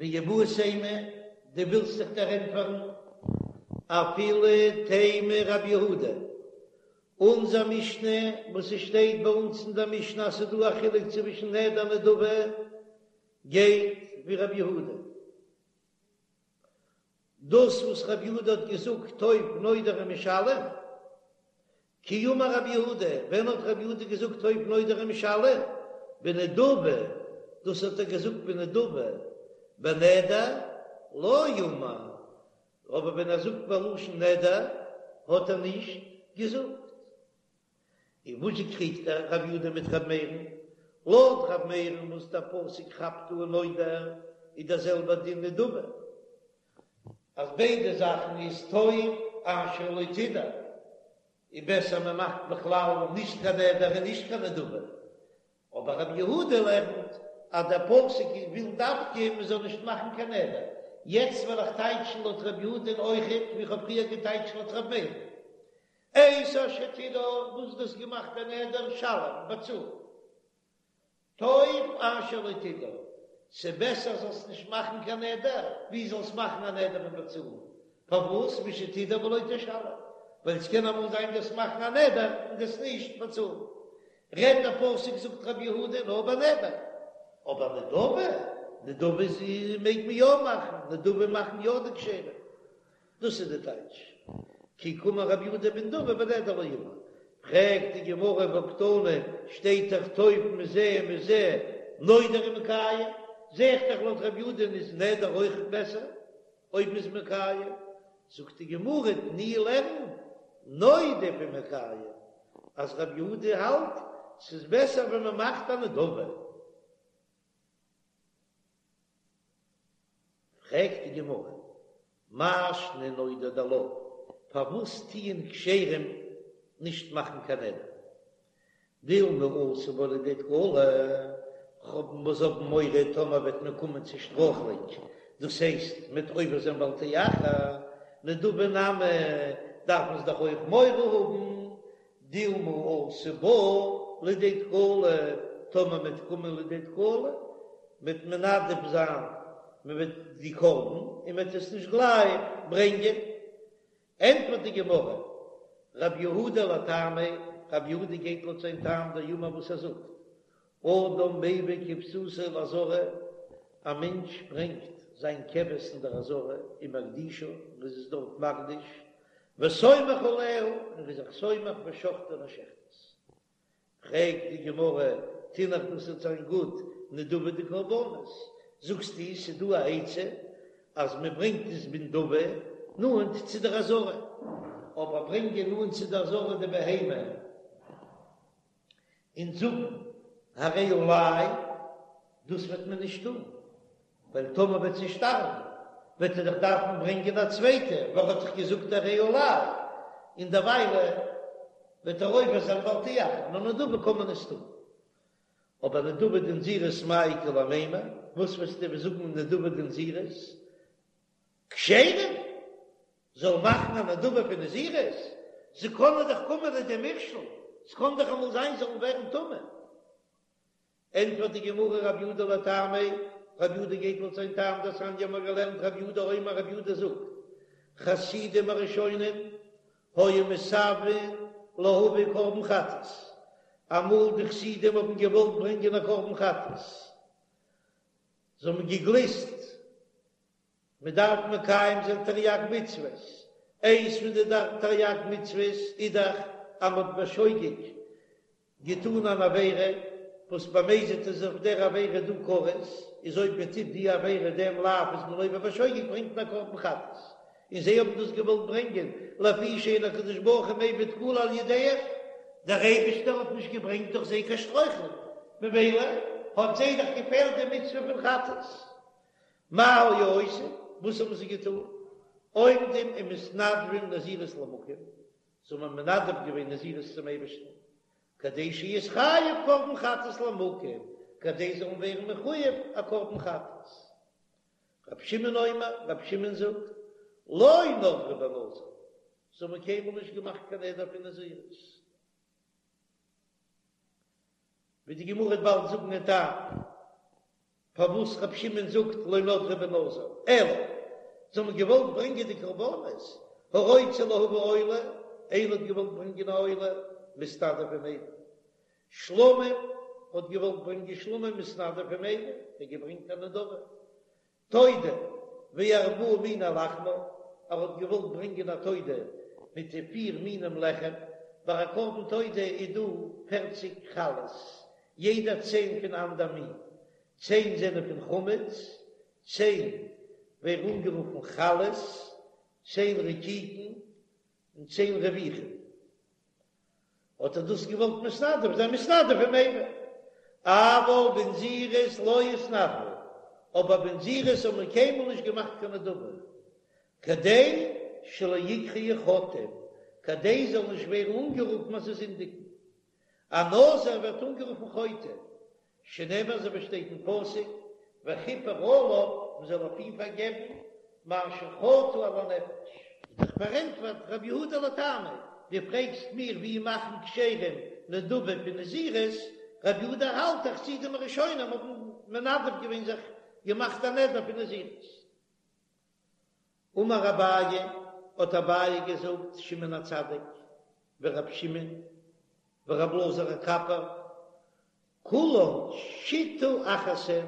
ואיבעית אימא, דו ווילסט זיך דערענטפערן? אפילו תימא רבי יהודה, אונזער משנה וואס ס'שטייט ביי אונז אין דער משנה אז ס'דא א חילוק צווישן נדר און נדבה, גייט ווי רבי יהודה. דאס וואס רבי יהודה האט געזאגט טוב נודר ומשלם, כי אמר רבי יהודה, ווען האט רבי יהודה געזאגט טוב נודר ומשלם? בנדבה, דאס האט ער געזאגט בנדבה, בנדר לא אמר, אבער ווען ער זאגט בלשון נדר האט ער נישט געזאגט. און וואס זשע קריגט ער רבי יהודה מיט רבי מאיר'ן? לויט רבי מאיר'ן וואס דער פסוק כאפט אן נודר איז דער זעלבער דין נדבה, אז ביידע זאכן איז טוב אשר לא תדור, איז בעסער מען מאכט בכלל נישט קיין נדר און נישט קיין נדבה, אבער רבי יהודה לערנט אז דער פסוק וויל דווקא מען זאל נישט מאכן קיין נדר, יעצט וועל איך טייטשן לויט רבי יהודה'ן אויכעט ווי איך האב פריער געטייטשט לויט רבי מאיר'ן. את אשר תדור, וואס דו האסט געמאכט א נדר, שלם, באצאל. טוב אשר לא תדור, ס'בעסער זאלסט נישט מאכן קיין נדר, ווי זאלסט מאכן א נדר און באצאלן. פארוואס? משתדור ולא תשלם, ווייל ס'קען אמאל זיין דו'סט מאכן א נדר און דו'סט נישט באצאלן. רעדט דער פסוק זאגט רבי יהודה נאר ביי נדר, אבער נדבה, נדבה איז מעג מען יא מאכן, נדבה מאכן יא די כשרים. דאס איז די טייטש כי קאמר רבי יהודה בנדבה בנדר לא אמר. פרעגט די גמרא והקתני, שטייט דאך טוב מזה ומזה נודר ומקיים, זע איך דאך לויט רבי יהודה איז נדר אויך בעסער אויב מ'איז מקיים, זאגט די גמרא תני לערן נודב ומקיים אז רבי יהודה האלט ס'איז בעסער ווען מ'מאכט א נדבה. פרעגט די גמרא, מאי שנא נודר דלא, פארוואס טוען כשרים נישט מאכן קיין נדר? דילמא אתי בהו לידי תקלה, כ'האב זיי האבן מורא טאמער וועט מען קומען צו שטרויכלונג, דאס הייסט מ'וועט עובר זיין בל תאחר, נדבה נמי דארף מען דאך אויך מורא האבן, דילמא אתי בה לידי תקלה, טאמער מ'וועט קומען לידי תקלה, מ'וועט מנדב זיין, מ'וועט די קרבן, און מ'וועט עס נישט גלייך ברענגען. ענטפערט די גמרא, רב יהודה לטעמיה, רב יהודה גייט לויט זיין טעם דאמר וואס ער זאגט, אדם מביא כבשתו לעזרה, א מענטש ברענגט זיין כבש אין דער עזרה, ומקדישה, און איז עס דארט מקדיש, וסומך עליה, און איז זיך סומך ושוחטה און ער שעכט עס. פרעגט די גמרא, תינח דאס וועט זיין גוט, נדבה דקרבנות, זאגסטו ס'איז דא א עצה אז מען ברענגט עס בנדבה נאנט צו דער עזרה, אבער ברענגען נאנט צו דער עזרה די בהמה און זאגן הרי עלי, דאס וועט מען נישט טון, ווייל טאמער וועט זי שטארבן וועט ער דאך דארפן ברענגען א צווייטע, ווייל ער האט דאך געזאגט הרי עלי, און דערוויילע וועט ער עובר זיין בל תאחר, נאר נדבה קען מען עס טון. אבער נדבה דנזירות מאי איכא למימר, וואס וועסטו זאגן נדבה דנזירות? כשרים זאל מאכן א נדבה פון נזירות? זיי קענען דאך קומען לידי מכשול, ס'קען דאך אמאל זיין זאלן ווערן טמא. ענטפערט די גמרא רב יהודה לטעמיה, רב יהודה גייט לויט זיין טעם דתניא האבן מיר געלערנט רב יהודה אומר רב יהודה זאגט, חסידים הראשונים היו מתאוין להביא קרבן חטאת, אמאל די חסידים האבן געוואלט ברענגען א קרבן חטאת, זיי האבן געגליסט מען דארף מקיים זיין תרי"ג מצוות, איינס פון די תרי"ג מצוות איז דאך אז מען האט בשוגג געטאן אן עבירה, וואס במזיד איז אויף דער עבירה דא כרת, איז אויב מען טוט די עבירה דעם לאו איז מען עובר בשוגג ברענגט מען א קרבן חטאת, און זיי האבן דאס געוואלט ברענגען לפי שאין הקדוש ברוך הוא מביא תקלה על ידיהם, דער אייבישטער האט נישט געברענגט דורך זיי קיין שטרויכלונג, ממילא האט זיי דאך געפעלט די מצוה פון חטאת. מה היו עושים, וואס האבן זיי געטאן? עומדים ומתנדבים נזירות למקום, זיי האבן מנדב געווען נזירות צום אייבערשטן, כדי שיתחייב קרבן חטאת למקום, כדי זיי זאלן ווערן מחויב א קרבן חטאת. רבי שמעון אומר, רבי שמעון זאגט, לא נדרו בנזיר, זיי האבן קיינמאל נישט געמאכט קיין נדר פון נזירות. ווי די גמרא וועט באלד זאגן דעם טעם. פארוואס רבי שמעון זאגט לא נדרו בנזיר, אלא זיי האבן געוואלט ברענגען די קרבנות, הרוצה להביא עולה, איינער האט געוואלט ברענגען א עולה, מתנדב ומביא, שלמים האט געוואלט ברענגען שלמים מתנדב ומביא, ער האט געברענגט א נדבה, תודה וארבעה מיני לחמה, ער האט געוואלט ברענגען א תודה מיט די פיר מינים לחם, ביי א קרבן תודה איז דא פערציג חלות, יעדע צען פון אנדער מין, צען זענען פון חמץ, צען ווערן אנגערופן חלות, צען רקיקין, און צען רביכין. האט ער דאס געוואלט מתנדב זיין מתנדב ומביא, אבל בנזירות לא התנדבו, אבער בנזירות האט מען קיינמאל נישט געמאכט קיין נדבה, כדי שלא יקראו חוטאים, כדי זאל נישט ווערן אנגערופן אז זיי זינדיגן. א נזיר ווערט אנגערופן חוטא, שנאמר אזוי ווי שטייט אין פסוק, וכפר עליו, מען זאל אויף אים פארגעבן, מאשר חטא על הנפש. איז דאך פארענטפערט רבי יהודה לטעמיה, דו פרעגסט מיר ווי מאכן כשרים נדבה פון נזירות, רבי יהודה האלט אז חסידים הראשונים האבן מנדב געווען זיך געמאכט א נדר פון נזירות. אמר אביי, האט אביי געזאגט, שמעון הצדיק ורב שמעון ורב אלעזר הקפר, כולן שיטה אחת הן,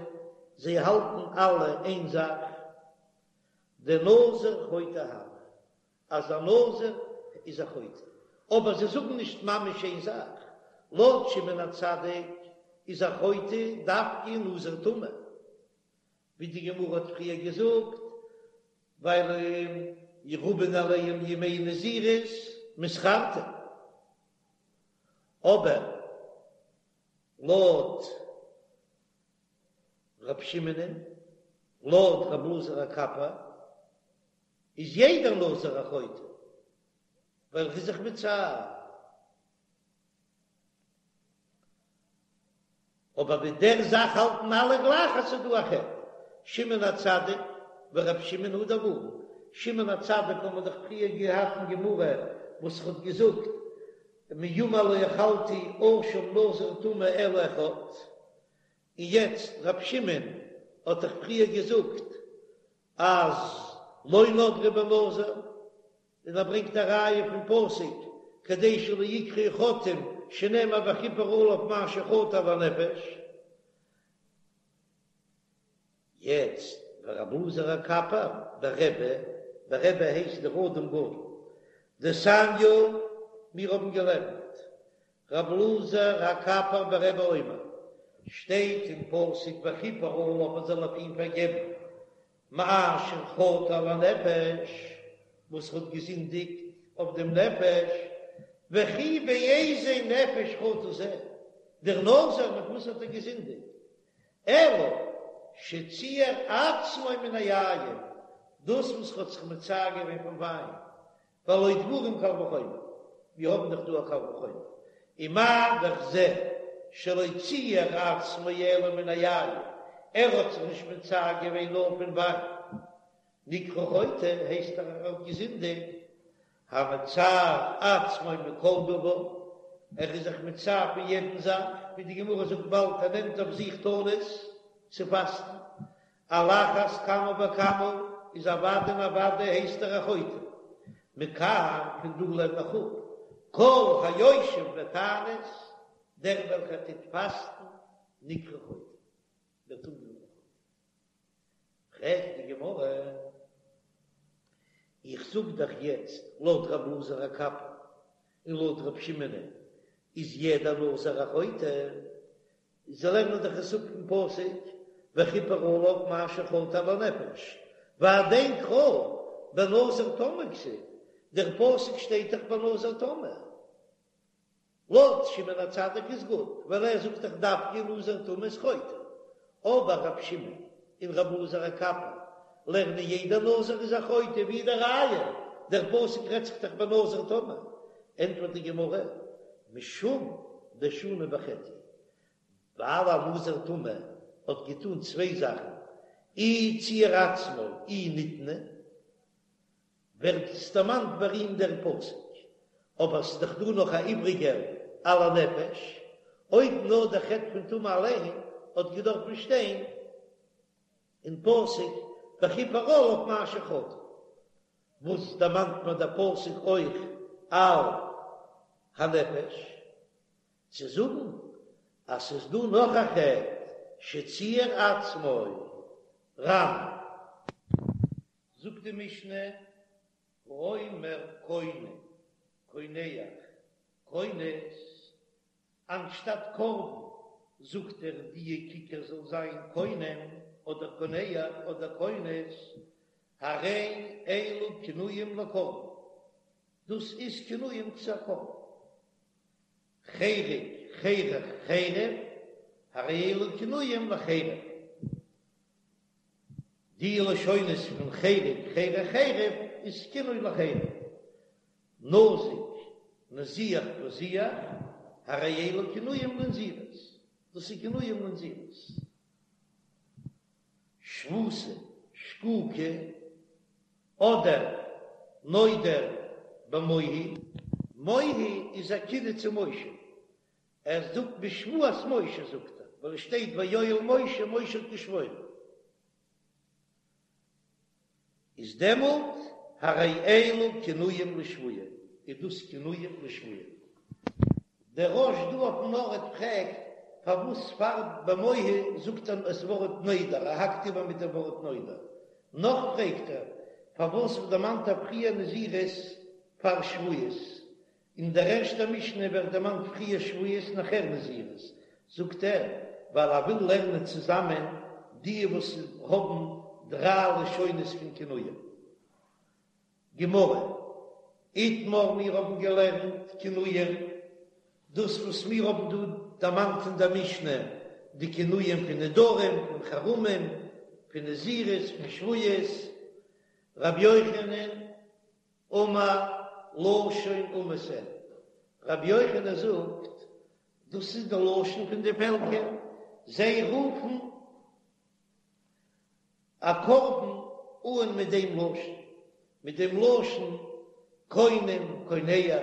זיי האלטן אלע איין זאך, דנזיר חוטא הוי, אז א נזיר איז א חוטא, אבער זיי זאגן נישט ממש איין זאך, לויט שמעון הצדיק איז א חוטא דווקא נזיר טמא, ווי די גמרא האט פריער געזאגט, ווייל רבין עליהם ימי נזירות מתחרטין, אבער לויט ר' שמעונ'ען, לויט ר' אלעזר הקפר, איז יעדער נזיר א חוטא, ווייל ער איז זיך מצער. אבער מיט דער זאך האלטן אלע גלייך אז ס'איז דא א חטא. שמעון הצדיק ור' שמעון הא דאמרן, שמעון הצדיק האבן מיר דאך פריער געהאט אין גמרא וואס האט געזאגט מימי לא אכלתי אשם נזיר טמא אלא אחד, און יעצט ר' שמעון האט דאך פריער געזאגט אז לא נדרו בנזיר, און ער ברענגט א ראיה פון פסוק כדי שלא יקראו חוטאים שנאמר וכפר עליו מאשר חטא על הנפש. יעצט ורבי אלעזר הקפר ברבי, ברבי הייסט דער אדם גדול, דתניא, מיר האבן געלערנט רבי אלעזר הקפר ברבי אומר, שטייט אין פסוק וכפר עליו מען זאל אויף אים פארגעבן מאשר חטא על הנפש, וואס האט געזינדיגט אויף דעם נפש, וכי באיזה נפש חטא זה, דער נזיר מיט וואס האט ער געזינדיגט, אלא שציער עצמו מן היין, דאס וואס האט זיך מצער געווען פון וויין, והלא דברים קל וחומר, מיר האבן דאך דא א קל וחומר, ומה דאך זה שלא ציער עצמו אלא מן היין, ער האט זיך נישט מצער געווען נאר פון וויין, נקרא חוטא, הייסט ער האט געזינדיגט, המצער עצמו מכל דבר, ער איז זיך מצער פון יעדן זאך, ווי די גמרא זאגט באלד ער נעמט אויף זיך תענית צו פאסטן, על אחת כמה וכמה איז אוודאי און אוודאי הייסט ער א חוטא. מכאן פון דא לערן איך אפ, כל היושב בתענית, דער וועלכער טוט פאסטן, נקרא חוטא, ווערט אנגערופן חוטא. פרעגט די גמרא, איך זאג דאך יעצט לויט רב אלעזר הקפר און לויט רב שמעונ'ען איז יעדער נזיר א חוטא, זיי לערנען דאך עס אפ פון פסוק וכפר עליו מאשר חטא על הנפש, והדין קרא בנזיר טמא כתיב, דער פסוק שטייט דאך בנזיר טמא, לויט שמעון הצדיק איז גוט, ווייל ער זאגט דאך דווקא נזיר טמא איז חוטא, אבער רב שמעון און רב אלעזר הקפר לערנען יעדער נזיר איז א חוטא, ווי איז די ראיה? דער פסוק רעדט זיך דאך בנזיר טמא, ענטפערט די גמרא, משום דשני בחטא, ווייל א נזיר טמא האט געטון צוויי זאכן, אי ציער עצמו אי נטמא, ווערט עס דערמאנט ביי אים דער פסוק, אבער ס'איז דאך דא נאך א איבריגער על הנפש, אויב נאר דער חטא פון טומאה אליין האט געדארפן שטיין. אין פסוק וכפר עליו מאשר חטא, וואס דערמאנט מיר דער פסוק אויך על הנפש, צו זאגן אז ס'איז דא נאך א חטא שציער עצמו ר"ן. זאגט די משנה, האומר קונם, קונח, כונס, אנשטאט קרבן זאגט ער דיע כיכר זאל זיין קונם אדער קונח אדער כונס, הרי אלו כינויים לקרבן, דאס איז כינויים צו א קרבן. חרק, חרך, חרף, הרי אלו כינויים לחרף. די לשונות פון חרק, חרך, חרף איז כינוי לחרף. נזיק, נזיח, פזיח, הרי אלו כינויים לנזירות, דאס איז כינויים לנזירות. שבותה, שקוקה, אדער נודר במוהי. מוהי איז א כינוי צו משה, ער זאגט בשבועת משה זאגט ער, ווייל עס שטייט ויואל משה, משה האט געשוואוירן. איז דעמאלט הרי אלו כינויים לשבועה, איז דאס כינויים לשבועה. דער רא"ש דא אויפן ארט פרעגט פארוואס פאר במוהי זאגט ער עס ווארט נודר, ער האקט איבער מיט דעם ווארט נודר. נאך פרעגט ער פארוואס דערמאנט ער פריער נזירות פאר שבועות, אין דער ערשטער משנה ווערט דערמאנט פריער שבועות נאכער נזירות, זאגט ער, ווייל ער וויל לערנען צוזאמען די וואס האבן דריי לשונות פון כינויים. גמרא, איתמר מיר האבן געלערנט כינויים, דאס וואס מיר האבן דא דערמאנט אין דער משנה, די כינויים פון נדרים, פון חרמים, פון נזירות, פון שבועות, רבי יוחנן אמר לשון אומות הן, רבי יוחנן זאגט, דאס איז די לשון פון די פעלקער, זיי רופן א קרבן אן מיט דעם לשון, מיט דעם לשון קונם קונח,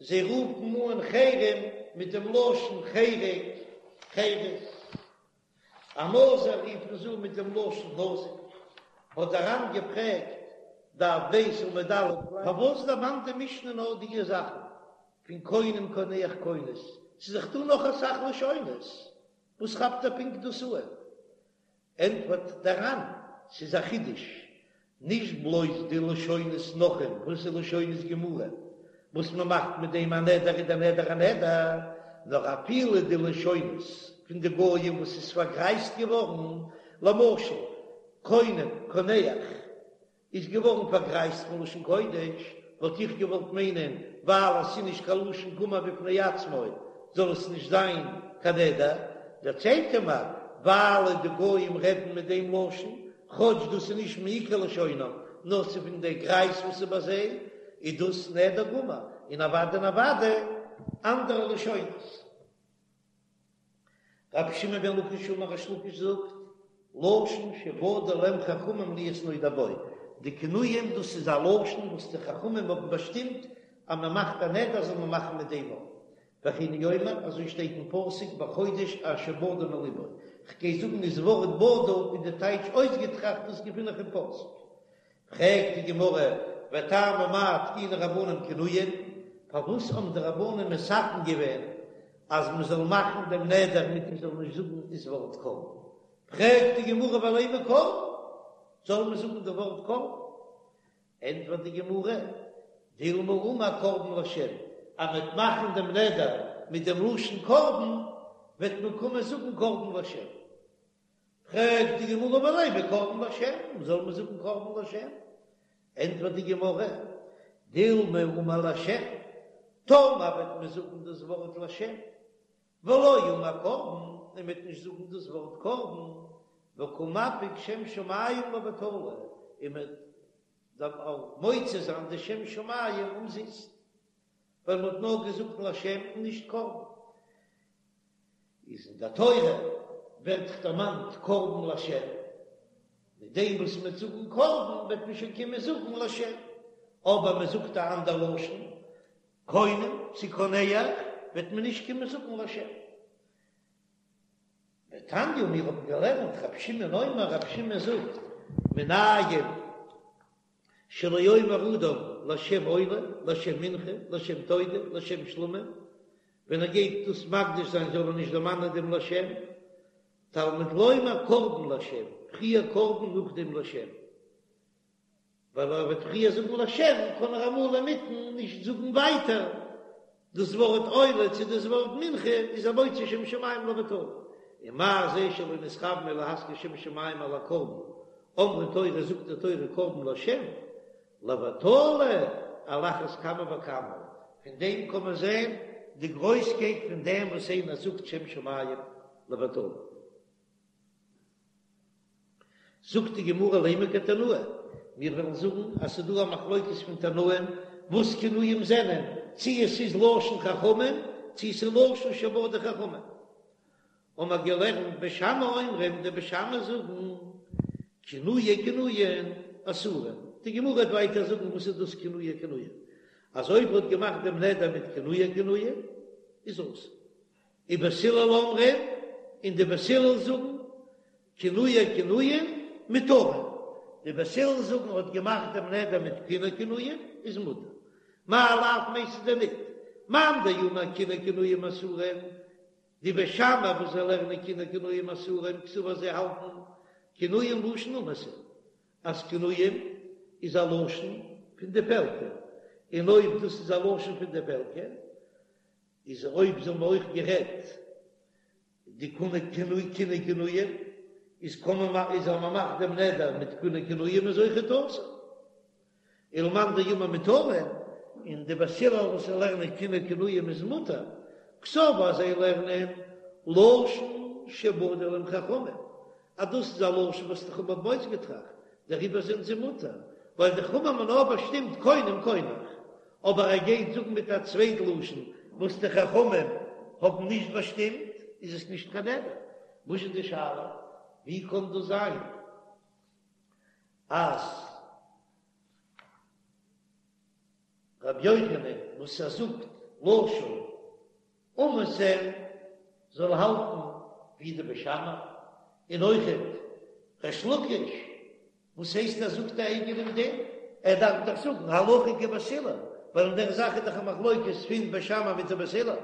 זיי רופן אן חרם מיט דעם לשון חרק חרס. א נזיר רופן זיי אן מיט דעם לשון נזיק, האט דער ר"ן געפרעגט, דף ב' עמוד א', פארוואס דערמאנט די משנה נאר דיע זאכן פון קונם קונח כונס, ס'איז דאך דא נאך אסאך לשונות, וואס כאפט ער פונקט דאס אן? ענטפערט דער ר"ן, ס'איז א חידוש, נישט בלויז די לשונות נכרים, וואס איז לשונות גמורה, וואס מען מאכט מיט דעם א נדר איז דער נדר א נדר, נאר אפילו די לשונות פון די גויים וואס איז פארגרייזט געווארן, למשל קונם, קונח, איז געווארן פארגרייזט פון לשון קודש, וואלט איך געוואלט מיינען ווייל עס איז נישט קיין לשון גמור בפני עצמו זאל עס נישט זיין קיין נדר, דערציילט ער מיר ווייל די גויים רעדן מיט דעם לשון, כאטש דאס איז נישט מעיקר לשונם נאר ס'איז פון די גרייז וואס איז ביי זיי, איז דאס נדר גמור, און אוודאי און אוודאי אנדערע לשונות. רבי שמעון בן לקיש אמר ריש לקיש זאגט, לשון שבדו להם חכמים להיות נודר בו, די כינויים דאס איז א לשון וואס די חכמים האבן באשטימט אז מען מאכט א נדר זאל מען מאכן מיט דעם ווארט, וכן הוא אומר, אזוי שטייט אין פסוק בחודש אשר בדה מלבו, כ'גיי זאגן דאס ווארט בדה איז די טייטש אויסגעטראכט דאס געפין איך אין פסוק. פרעגט די גמרא, וטעמא מאי תקינו רבנן כינויים, פארוואס האבן די רבנן מתקן געווען אז מען זאל מאכן דעם נדר מיט מען זאל נישט זאגן דאס ווארט קרבן? פרעגט די גמרא ולימא קרבן, זאל מען זאגן די ווארט קרבן? ענטפערט די גמרא, דילמא אמר קרבן לשם, אז מען וועט מאכן דעם נדר מיט דעם לשון קרבן, וועט מען קומען זאגן קרבן לשם. פרעגט די גמרא ולימא קרבן לשם, זאל מען זאגן קרבן לשם? ענטפערט די גמרא, דילמא אמר לשם, טאמער וועט מען זאגן דאס ווארט לשם, ולא אמר קרבן, און מען וועט נישט זאגן דאס ווארט קרבן, וקא מפיק שם שמים לבטלה, און מען דארף מוציא זיין די שם שמים אומזיסט, ווייל מען האט נאר געזאגט לשם און נישט קרבן. איז אין דער תורה ווערט דערמאנט קרבן לשם, מיט דעם וואס מען וועט זאגן קרבן וועט מען שוין קומען זאגן לשם, אבער מען זאגט א אנדער לשון, קונם צו קונח, וועט מען נישט קומען זאגן לשם. ותניא, מיר האבן געלערנט, רבי שמעון אומר, רבי שמעון זאגט, מנין שלא יאמר אדם לשם עולה, לשם מנחה, לשם תודה, לשם שלמים, ווען ער גייט דאס מקדיש זיין זאל ער נישט דערמאנען דעם לשם, תלמוד לומר קרבן לשם, פריער קרבן נאכדעם לשם. ווייל ער וועט פריער זאגן לשם קען ער אמאל אינמיטן נישט זאגן ווייטער דאס ווארט עולה צו דאס ווארט מנחה איז ער מוציא שם שמים לבטלה, ומה זה שלא נתכוון אלא להזכיר שם שמים על הקרבן, אמרה תורה זאגט די תורה קרבן לשם, לבטלה על אחת כמה וכמה, פון דעם קען מען זען די גרויסקייט פון דעם וואס איינער זאגט שם שמים לבטלה. זאגט די גמרא לימא כתנאי, מיר וועלן זאגן אז ס'איז דא א מחלוקת פון תנאים וואס כינויים זענען, צי עס איז לשון חכמים צי עס איז לשון שבדו חכמים. האבן מיר געלערנט בית שמאי אומרים, די בית שמאי זאגן כינויי כינויין אסורין, די גמרא וועט ווייטער זאגן וואס איז דאס כינויי כינויין, אז אויב האט געמאכט דעם נדר מיט כינויי כינויין איז אסור. ובית הלל אומרים, און די בית הלל זאגן, כינויי כינויים מותרין, די בית הלל זאגן האט געמאכט דעם נדר מיט כינוי כינויים איז מותר, מאי לאו מיינסטו דען ניט, מאן דאמר כינויי כינויים אסורין, די בית שמאי וואס זיי לערנען כינויי כינויים אסורין קסבר זיי האלטן כינויים לשון אומות הן, אז כינויים איז א לשון פון די פעלקער, און אויב דאס איז א לשון פון די פעלקער איז אויב זיי האבן אויך גערעדט די כינוי כינוי כינוי כינויים איז קען מען איז אז מען מאכט דעם נדר מיט כינוי כינויים איז אויכעט אסור. ולמאן דאמר מותרין און די בית הלל וואס זיי לערנען כינוי כינויים איז מותר קסבר אז זיי לערנען לשון שבדו להם חכמים אז דאס איז א לשון וואס די חכמים האבן אויסגעטראכט, דעריבער זענען זיי מותר, ווייל די חכמים האבן נאר באשטימט קונם קונח, אבער ער גייט זאגן מיט א צווייט לשון וואס די חכמים האבן נישט באשטימט, איז עס נישט קיין נדר. וואס איז די שאלה? ווי קען דאס זיין אז רבי יוחנן וואס ער זאגט לשון אומות הן זאל האלטן ווי די בית שמאי, און אויכעט ריש לקיש, וואס הייסט ער זאגט א אייגענעם דין? ער דארף דאך זאגן הלכה כבית הלל, ווייל אין דער זאך איז דאך א מחלוקת פון בית שמאי מיט די בית הלל.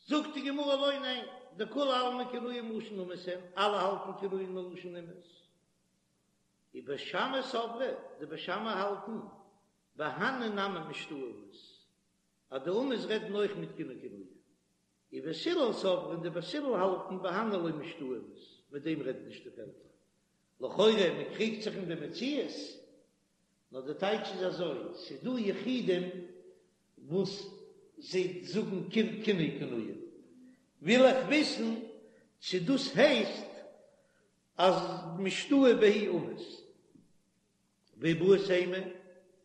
זאגט די גמרא לא ניין, דכולי עלמא כינויים לשון אומות הן, אלע האלטן כינויים מלשון אומות. ובית שמאי סברי, די בית שמאי האלטן, בהני נמי משתעי אמות, אז די אומות רעדן אויך מיט כינוי כינויים. ובית הלל סברי, און די בית הלל האלטן, בהני לא משתעי אמות, מיט דעם רעדן נישט די פעלקער. לכאורה מען קריגט זיך אין די מציאות, נאר די טייטש איז אזוי, ס'איז דא יחידים וואס זיי זאגן כינוי כינויים, וויל איך וויסן צו דאס הייסט אז משתעי בהו אומות. ואיבעית אימא,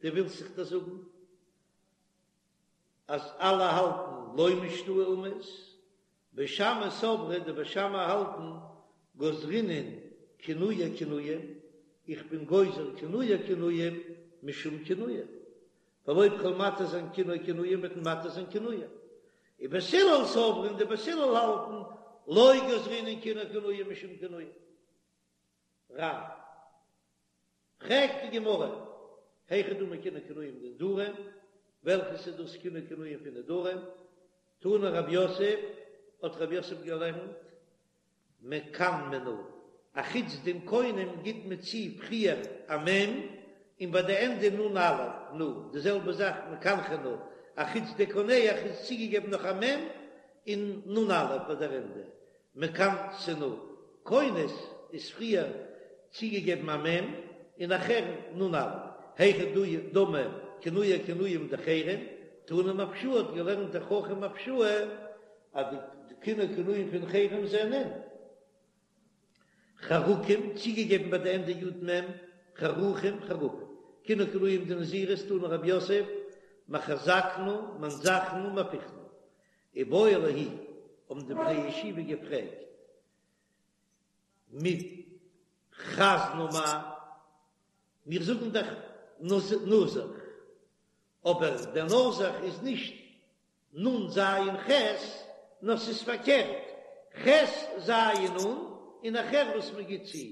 דו ווילסט זיך דאס זאגן אז אלע האלטן לא משתעי אומות, בית שמאי סברי, די בית שמאי האלטן גזרינן כינויי כינויים, איך בין גוזר כינויי כינויים משום כינויים, ווייל אויב כ'וועל מתיר זיין כינוי כינויים וועט מען מתיר זיין כינויים. ובית הלל סברי און די בית הלל האלטן לא גזרינן כינוי כינויים משום כינויים. רב. פרעגט די גמרא, היכי דמי כינוי כינויים דנדרים, וועלכעס איז דאס כינוי כינויים פון נדרים? תנא רב יוסף, האט רב יוסף געלערנט, מקנמנא, אחוץ דעם קונם גיט מען צו פריער א מ' און ביי די ענדע נ א, נא, די זעלבע זאך מקנחנא, אחוץ די קונח איז צוגעגעבן נאך א מ' און נ א ביי דער ענדע, מקנסנא, כונס איז פריער צוגעגעבן א מ' און נאכהער נ א, היכי דמי כינויי כינויים דחרם, תנא מפשוע האט געלערנט דער חכם מפשוע אז די כינוי כינויים פון חרם זענען חרקים, צוגעגעבן ביי די ענדע י מ, חרוכים, חרפים. כינוי כינויים דנזירות תנא רב יוסף, מחזקנא, מנזחנא, מהפכנא. איבעיא להו, האבן די בני ישיבה געפרעגט, מפתנא. חזנא מאי, מיר זאגן דאך נזך, אבער דער נזך איז נישט נ ז ח, נאר ס'איז פארקערט, ח ז נ, און נאכער וואס מ'גיט צו,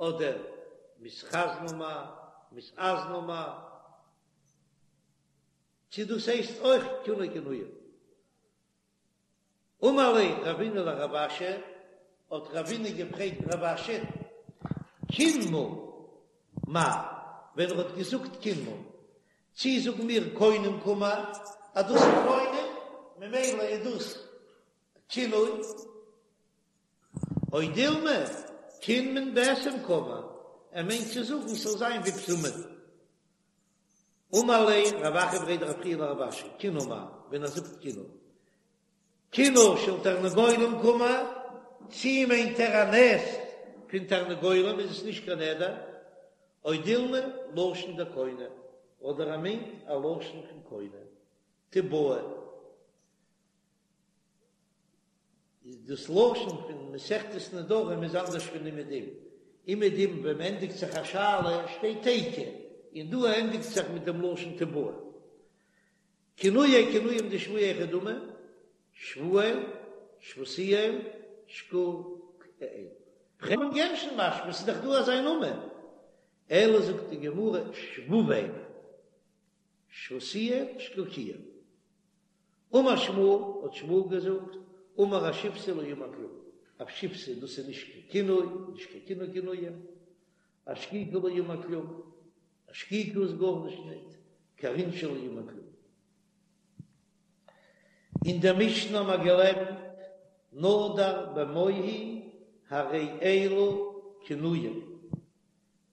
אדער מתחזנא מאי, מתאזנא מאי, צו דאס הייסט אויך כינוי כינויים. אמר ליה רבינא לרב אשי, האט רבינא געפרעגט רב אשי, קינמא מאי, ווען ער האט געזאגט קינמא, צי זאגן מיר קונם קאמר, אז דאס איז קונם, ממילא איז דאס כינוי, או דילמא קינמון בשם קאמר, ער מיינט צו זאגן ס'זאל זיין ווי בשמים. אמר ליה רב אחא בריה דרב חייא לרב אשי, קינא מאי, ווען ער זאגט קינא, קינא של תרנגולים קאמר, צי מיינט ער א נעסט פון תרנגולים איז עס נישט קיין נדר, או דילמא לשון דקונם, אדער ער מיינט א לשון פון קונם, תיבעי. איז דאס לשון פון מסכת נדרים איז אנדערש פון אומעדום, אומעדום ווען מ'ענדיגט זיך א שאלה שטייט תיקו, און דא ענדיגט זיך מיט דעם לשון תיבעי. כינויי כינויים דשבועה היכי דמי, שבואל, שבותיאל, שקוקאל. אבן גרשון משמע ס'איז דאך דא אזא נאמען, אלא זאגט די גמרא שבובאל, שבותיאל, שקוקיאל. אמר שמואל, האט שמואל געזאגט, אמר אשיבתא לא אמר כלום, אשיבתא דאס איז נישט קיין כינוי, נישט קיין כינוי כינויים, אשקוקי לא אמר כלום, אשקוקי איז גארנישט ניט, כרינשא לא אמר כלום. אין דער משנה האבן מיר געלערנט, נדר במוהי הרי אלו כינויים.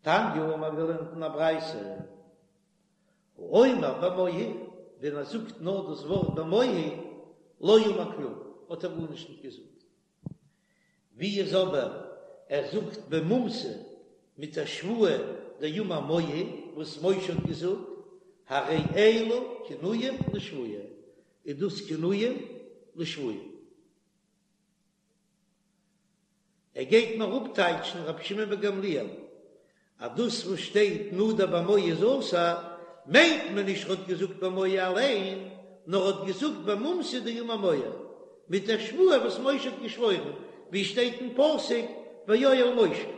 תניא האבן מיר געלערנט אין א ברייתא, האומר במוהי, ווען ער זאגט נאר דאס ווארט במוהי, לא אמר כלום, האט ער גארנישט נישט געזאגט. ווי איז אבער ער זאגט במומתא מיט א שבועה דאמר מוהי, וואס משה האט געזאגט, הרי אלו כינויים לשבועה, איז דאס כינויים לשבועה. ער גייט מיר אפטייטשן רבי שמעון בן גמליאל אז דאס וואס שטייט נדר במוהי איז אסור, מיינט מען נישט ר'האט געזאגט במוהי אליין, נאר ר'האט געזאגט במומתא דאמר מוהי, מיט דער שבועה וואס משה האט געשוואוירן, ווי שטייט אין פסוק ויואל משה.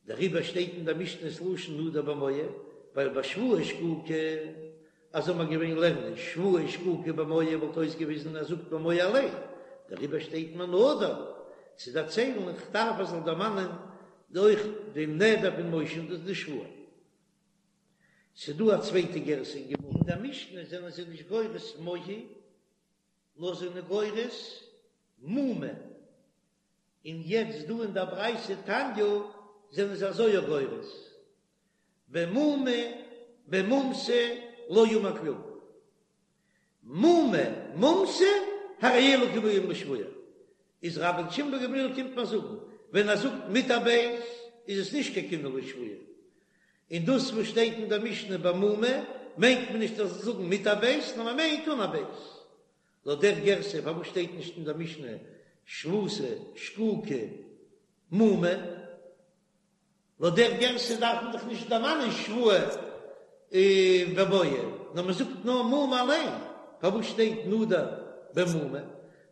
דעריבער שטייט אין דער משנה ס'לשון נדר במוהי, ווייל ביי שבועה שקוקה, אז זאל מען געווען לערנען שבועה שקוקה במוהי וואלט אויסגעוויזן ער זאגט במוהי אליין, דעריבער שטייט מען נדר צו דערציילן איך דארף ער זאל דערמאנען אויך דעם נדר פון משה און דאס די שבועה. ס'דא א צווייטע גירסא אין גמרא. אין דער משנה זענען זיי נישט גורס מוהי, נאר זענען גורס מומא. און יעצט דא אין דער ברייתא תניא זענען זיי אזוי גורס, במומא במומתא לא אמר כלום, מומא מומתא הרי אלו כינויים לשבועה, איז רבן שמעון בן גמליאל קומט מיר זאגן ווען ער זאגט מיט א בית איז עס נישט קיין כינוי לשבועה, און דאס וואס שטייט אין דער משנה במומא מיינט מען נישט אז זאגן מיט א בית נאר מען מיינט אן א בית. לויט דער גירסא פארוואס שטייט נישט אין דער משנה שבותא שקוקא מומא? לויט דער גירסא דארף מען דאך נישט דערמאנען שבועה במוהי, נאר מען זאגט נאר מומא אליין, פארוואס שטייט נדר במומא?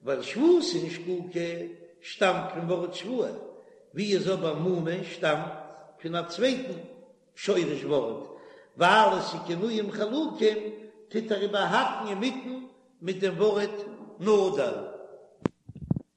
ווייל שבותא און שקוקא שטאמט פון ווארט שבועה, ווי איז אבער מומא שטאמט פון א צווייטן שורש ווארט, ווייל עס איז כינויים חלוקים, טוט ער איבערהאקן אינמיטן מיט דעם ווארט נדר.